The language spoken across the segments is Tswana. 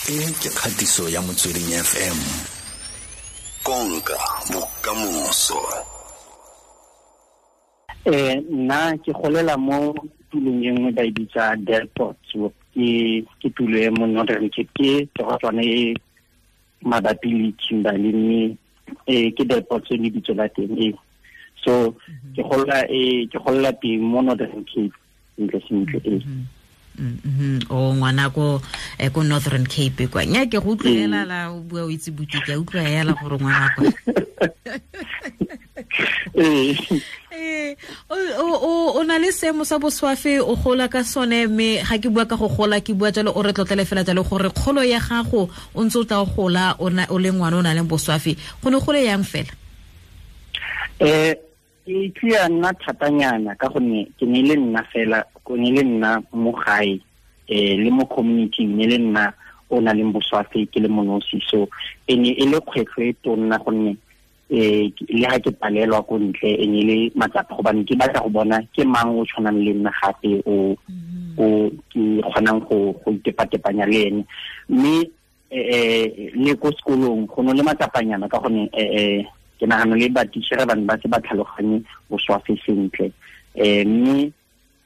E ke kgatiso ya Motsweding FM. Konka bokamoso. Nna ke golela mo tulong e nngwe ba e bitsa Delport. Ke tulo e mo Northern Cape, ke torotswana e mabapi le Kimberley, mme ke Delport le bitso la teng e. So ke golela teng mo Northern Cape sentle sentle e. O ngwana ko ko Northern Cape kwa. Nya ke go utlwela la o bua o itse buti, ke utlwa yela gore ngwana kwa. O na le seemo sa boswafe, o gola ka sone, mme ga ke bua ka go gola ke bua jalo o re tlotlele fela jalo gore kgolo ya gago o ntse o tla o gola o le ngwana o na leng boswafe, go ne gole yang fela? Ke tlile nna thatanyana ka gonne ke ne le nna fela, ke ne le nna mo gae, le mo community ne le nna o na leng boswafe ke le monosi. So e ne e le kgwetlho e tonna gonne le ha ke palelwa ko ntle e ne le matsapa, gobane ke batla go bona ke mang o tshwanang le nna gape o ke kgonang go itepatepanya le ene. Mme le ko sekolong go ne le matsapanyana ka gonne ke nagana le batichere ba ne ba se ba tlhaloganye boswafe sentle. Mme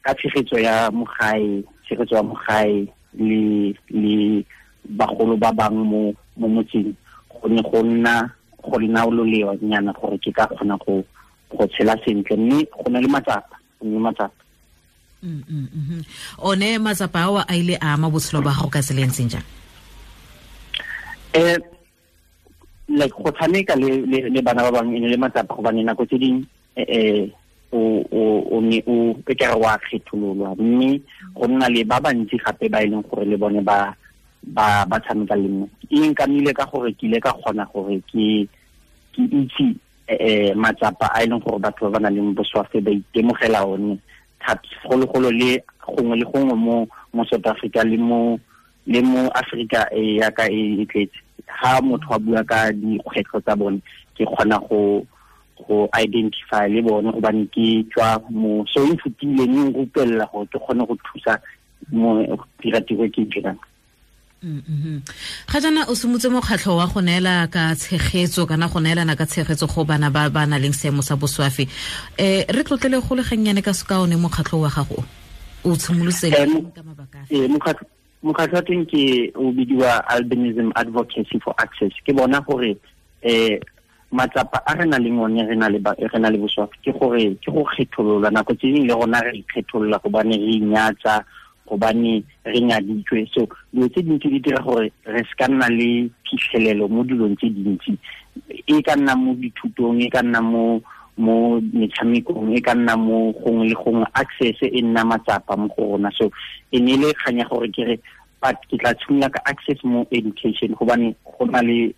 ka tshegetso ya mogae, tshegetso ya mogae le bagolo ba bang mo motseng, go ne go nna go nna lolewa nyana gore ke ka kgona go tshela sentle. Mme go na le matsapa, go ne matsapa. One matsapa ao a ile a ama botshelo ba gago ka tsela e ntseng jang? Like go tshameka le bana ba bangwe e ne le matsapa, gobane nako tse dingwe o ne o ke re wa kgethololwa, mme go nna le ba bantsi gape ba e leng gore le bone ba tshameka le nna. E nkamile ka gore ke ile ka kgona gore ke itse matsapa a e leng gore batho ba ba nang le boswafe ba itemogela one thata, segologolo le gongwe le gongwe mo South Africa le mo Africa e yaka e tletse. Ha motho a bua ka dikgwetlho tsa bone, ke kgona go identify le bone gobane ke tswa mo, so e nthutile mme nrupelela gore ke kgone go thusa mo dira tiro e ke e dirang. Ga jaana o simotse mokgatlho wa go neela ka tshegetso kana go neelana ka tshegetso go bana ba ba nang le seemo sa boswafe. Re tlotlele go le gannyane ka seka one mokgatlho wa gago o tshimolotse ka mabaka afe? Mokgatlho wa teng ke o bidiwa Albinism Advocacy for Access. Ke bona gore matsapa a re nang le one re na le boswafe ke gore ke go kgetholola. Nako tse dingwe le rona re ikgetholola gobane re inyatsa, gobane re nyaditswe. So dilo tse dintsi di dira gore re se ka nna le phitlhelelo mo dilong tse dintsi, e ka nna mo dithutong, e ka nna mo metshamekong, e ka nna mo gongwe le gongwe. Access e nna matsapa mo go rona. So e ne le kganya gore ke re but ke tla tshimola ka access mo education, gobane go na le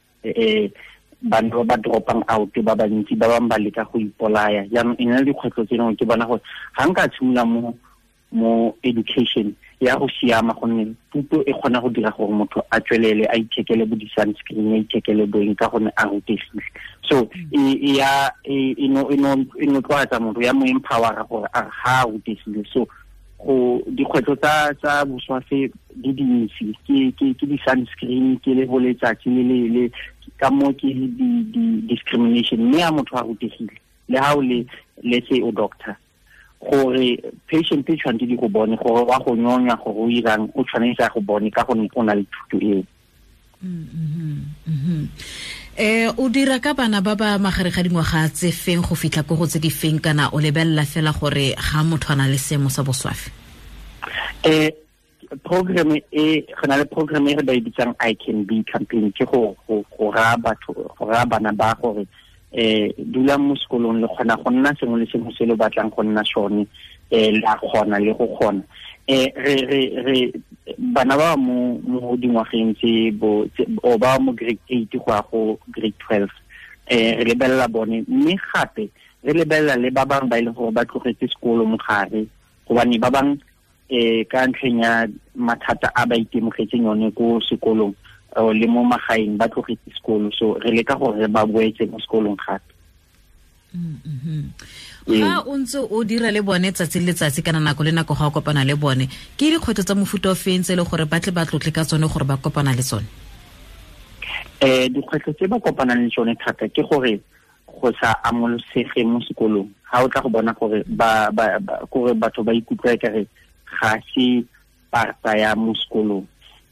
bana ba ba dropang out ba bantsi, ba bangwe ba leka go ipolaya. Jaanong e na le dikgwetlho tse dingwe, ke bona gore ga nka tshimola mo education ya go siama, gonne thuto e kgona go dira gore motho a tswelele a ithekele bo di-sunscreen, a ithekele boeng ka gonne a rutegile. So e notloatsa motho, ya mo empowera gore a ga a rutegile. So go dikgwetlho tsa boswafe di dintsi, ke di-sunscreen, ke le go letsatsi le ka mo ke di-discrimination. Mme a motho a rutegile, le ha o le let's say o doctor, gore patient e tshwanetse di go bone gore wa go nyonya, gore o irang, o tshwanetse a go bone ka gonne o na le thuto eo. O dira ka bana ba ba magare ga dingwaga tse feng go fitlha ko go tse di feng, kana o lebelela fela gore ga motho a na le seemo sa boswafe? Program e re na le program e re ba e bitsang I Can Be campaign, ke go raya batho, go raya bana ba gore dulang mo sekolong, le kgona go nna sengwe le sengwe se le batlang go nna sone, le a kgona le go kgona. Re bana ba mo dingwageng tse bo o ba mo grade 8 go ya go grade 12, re lebelela bone, mme gape re lebelela le ba bangwe ba e leng gore ba tlogetse sekolo mogare, gobane ba bangwe ka ntlheng ya mathata a ba itemogetseng yone ko sekolong le mo magaeng ba tlogetse sekolo. So re leka gore re ba boetse mo sekolong gape. Ga o ntse o dira le bone tsatsi le letsatsi kana nako le nako ga o kopana le bone, ke dikgwetlho tsa mofuta o feng tse e le gore ba tle ba tlotle ka tsone gore ba kopana le tsone? Dikgwetlho tse ba kopanang le tsone thata ke gore go sa amolosege mo sekolong. Ga o tla go bona gore gore batho ba ikutlwa ekare ga se parta ya mo sekolong.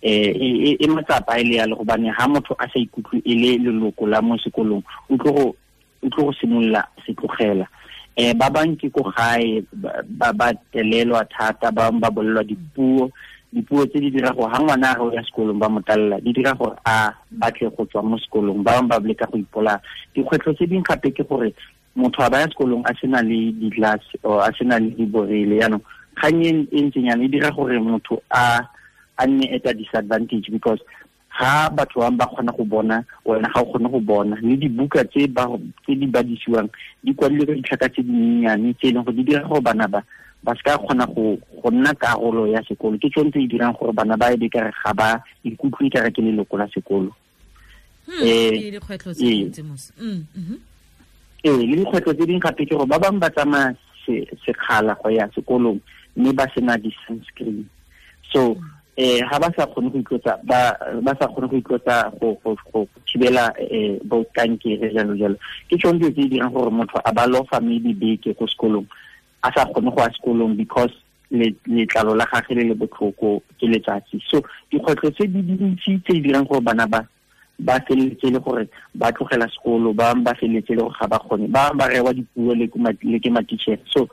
E matsapa e le yalo, gobane ha motho a sa ikutlwe e le leloko la mo sekolong, o tlo go simolola se tlogela. Ba bang ke ko gae ba telelwa thata, ba bang ba bolelwa dipuo tse di dira gore ha ngwana a re o ya sekolong ba mo talela, di dira gore a batle go tswa mo sekolong, ba bang ba leka go ipolaya. Dikgwetlho tse dingwe gape ke gore motho a ba ya sekolong a sena le di-glass or a sena le diborele, jaanong kgang e ntseng yana e dira gore motho a nne at a disadvantage, because ha batho ba kgona go bona, wena ga o kgone go bona. Le dibuka tse di badisiwang di kwadilwe ka ditlhaka tse dinyenyane tse e leng gore di dira gore bana ba se ka kgona go nna karolo ya sekolo. Ke tsone tse di dirang gore bana ba ebe kare ga ba ikutlwe kare ke leloko la sekolo. Le dikgwetlho tse dintsi mos. Le dikgwetlho tse dingwe gape ke gore ba bangwe ba tsamaya sekgala go ya sekolong mme ba sena di-sunscreen. So ha ba sa kgone go itlotsa, ba sa kgone go itlotsa go thibela bo kankere jalo jalo. Ke tsone dilo tse di dirang gore motho a ba lofa maybe beke ko sekolong, a sa kgone go ya sekolong because letlalo la gagwe le le botlhoko ke letsatsi. So dikgwetlho tse di dintsi tse di dirang gore bana ba feleletse le gore ba tlogela sekolo, ba bangwe ba feleletse le gore ga ba kgone, ba bangwe ba rewa dipuo le ke matitšhere. So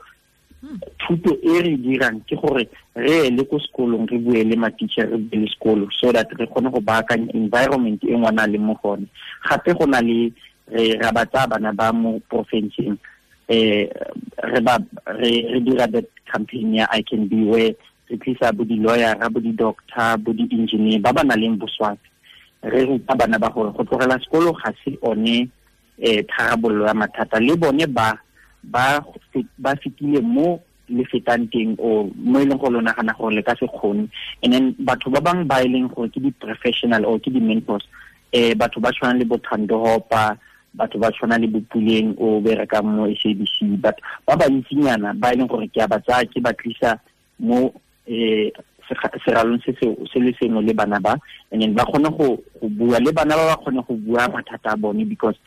thuto e re dirang ke gore re le ko sekolong re bue le matitšhere, re bue le sekolo, so that re kgone go baakanya environment e ngwana a leng mo gone. Gape go na le re ra ba tsaya bana ba mo porofenseng, re dira that campaign ya I Can Be, where re tlisa bo di-lawyer, bo di-doctor, bo di-engineer ba ba nang le boswafi. Re ruta bana ba gore go tlogela sekolo ga se one tharabololo ya mathata, le bone ba fetile mo le fetang teng, o mo e leng gore lo nagana gore le ka se kgone. And then batho ba bangwe ba e leng gore ke di-professional or ke di-mentors, batho ba tshwana le bo Thando Hopa, batho ba tshwana le bo Puleng o berekang mo SABC, but ba bantsinyana ba e leng gore ke a ba tsaya ke ba tlisa mo seralong se le sengwe le bana ba, and then ba kgone go bua le bana ba kgone go bua mathata a bone. Because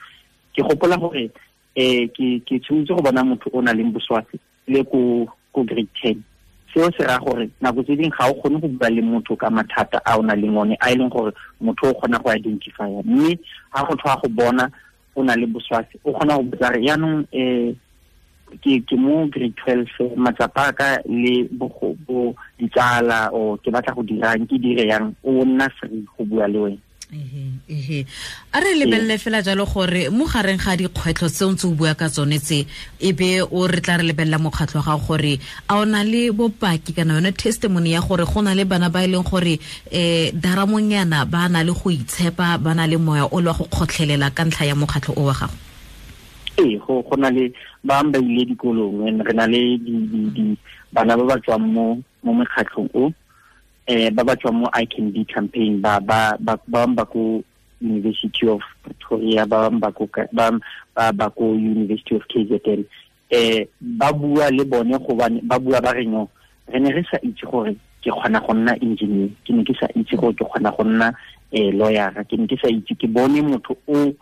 ke gopola gore ke tshwanetse go bona motho o nang le boswafi le ko grade 10. Seo se raya gore nako tse dingwe ga o kgone go bua le motho ka mathata a o nang le one, a e leng gore motho o kgona go identifya. Mme ga go tlhoa go bona o na le boswafi, o kgona go botsa re jaanong ke mo grade 12, matsapa a ka le bo ditsala, o ke batla go dirang, ke dire yang, o nna free go bua le wena. A re lebelele fela jalo gore mo gareng ga dikgwetlho tse o ntse o bua ka tsone tse, e be o re tla re lebelela mokgatlho wa gago gore a o na le bopaki kana yone testimony ya gore go na le bana ba e leng gore daramonyana ba na le go itshepa, ba na le moya o le wa go kgotlhelela ka ntlha ya mokgatlho o wa gago? Ee, go na le ba ba ile dikolong, re na le bana ba ba tswang mo mekgatlhong o, ba ba tswang mo I Can Be campaign, ba ba ko University of Pretoria, ba ba ko University of KZN. Ba bua le bone gobane ba bua ba re no, re ne re sa itse gore ke kgona go nna engineer, ke ne ke sa itse gore ke kgona go nna lawyer, ke ne ke sa itse, ke bone motho o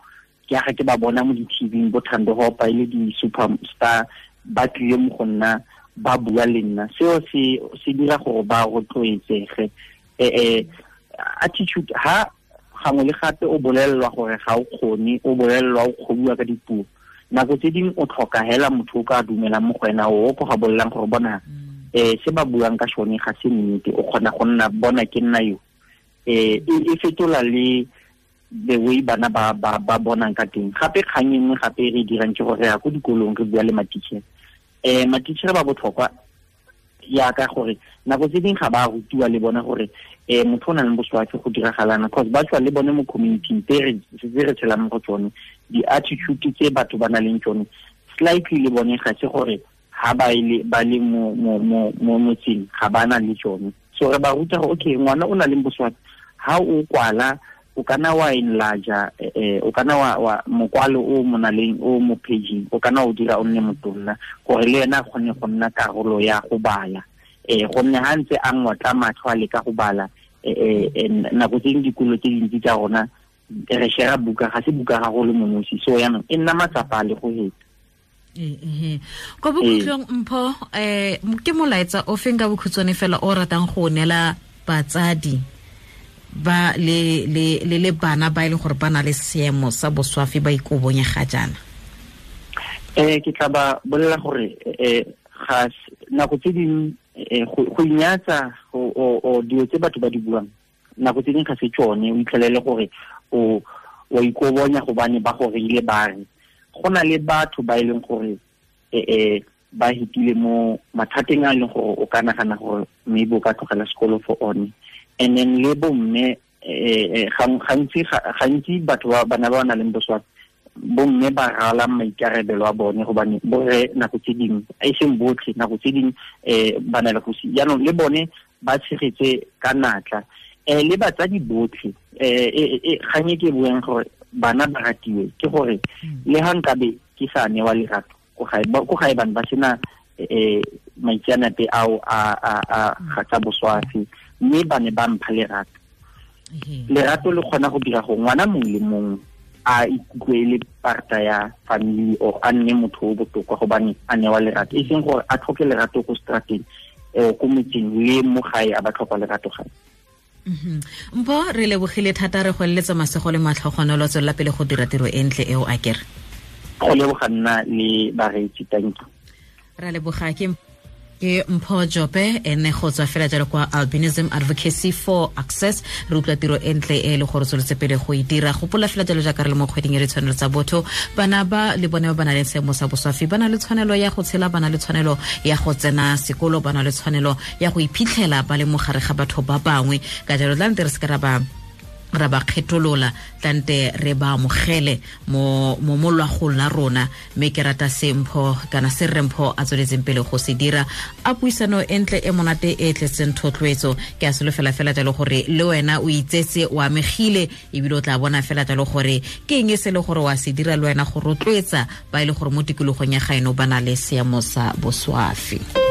ke aga ke ba bona mo di-TV bo Thando Hopa e le di-superstar ba tlile mo go nna ba bua le nna. Seo se dira gore ba rotloetsege. Attitude, ha gangwe le gape o bolelelwa gore ga o kgone, o bolelelwa o kgobiwa ka dipuo, nako tse dingwe o tlhoka hela motho o ka dumelang mo go wena, o ko ga bolelang gore bona se ba buang ka sone ga se nnete, o kgona go nna bona ke nna yo. E fetola le the way bana ba bonang ka teng. Gape kgang e nngwe gape re dirang ke gore re ya ko dikolong re bua le matitšhere. Matitšhere ba botlhokwa yaka gore nako tse dingwe ga ba rutiwa le bona gore motho o nang le boswafi go diragalana, cause ba tswa le bone mo community tse re tshelang mo go tsone, di-attitude tse batho ba nang le tsone slightly le bone ga se gore ha ba le mo motseng ga ba na le tsone. So re ba ruta gore okay, ngwana o na le boswafi, ha o kwala O kana wa enlarge, o kana wa mokwalo o monaleng o mo paging, o kana o dira o nne motonna gore le ena a kgone go nna karolo ya go bala. Gonne ha ntse a ngotla matlho a leka go bala, nako tse dingwe dikolo tse dintsi tsa rona re share buka, ga se buka ga go le monosi, so yaanong e nna matsapa a le go heta. Ko bokhutlong Mpho, ke molaetsa o feng ka bokhutshwane fela o ratang go neela batsadi ba le le le le bana ba ile gore ba na le seemo sa boswafi ba ikobonya ga jaana? Ke tla ba bolela gore ga nako tse dingwe go inyatsa o dilo tse batho ba di buang nako tse dingwe ga se tsone, o itlhelele gore o wa ikobonya gobane ba go reile ba re go na le batho ba e leng gore ba hitile mo mathateng a leng gore o ka nagana gore maybe o ka tlogela sekolo for one. And then le bomme, gantsi batho ba bana ba nang le boswafi, bomme ba rala maikarabelo a bone gobane borre nako tse dingwe, e seng botlhe, nako tse dingwe ba na le go si. Jaanong le bone ba tshegetse ka natla. Le batsadi botlhe, kgang e ke buang gore bana ba ratiwe ke gore le ha nkabe ke sa newa lerato ko gae, bana ba sena maitseanape ao a ga tsa boswafi, mme ba ne ba mpha lerato. Lerato le kgona go dira gore ngwana mongwe le mongwe a ikutlwe e le parta ya family or a nne motho o botoka gobane a newa lerato, e seng gore a tlhoke lerato ko strateng, ko motseng le mo gae a ba tlhoka lerato gae. Mpho, re lebogile thata, re go eletsa masego le matlhogonolo, tswelela pele go dira tiro e ntle eo a kere. Go leboga nna le bareetsi, thank you. Ra leboga. Ke Mpho Jope, ene go tswa fela jalo kwa Albinism Advocacy for Access. Re utlwa tiro e ntle e le gore tsweletse pele go e dira. Gopola fela jalo jaaka re le mo kgweding e re tshwanelo tsa botho, bana ba le bone ba ba nang le seemo sa boswafi ba na le tshwanelo ya go tshela, ba na le tshwanelo ya go tsena sekolo, ba na le tshwanelo ya go iphitlhela ba le mo gare ga batho ba bangwe. Ka jalo tlante re se ka ra ba kgetolola, tlante re ba amogele mo molwagong la rona. Mme ke rata se Mpho kana se rre Mpho a tsweletseng pele go se dira. A puisano e ntle e monate e tletseng thotloetso. Ke a solofela fela jalo gore le wena o itsetse, o amegile, ebile o tla bona fela jalo gore ke eng e se le gore wa se dira le wena go rotloetsa ba e le gore mo tikologong ya gaeno ba na le seemo sa boswafi.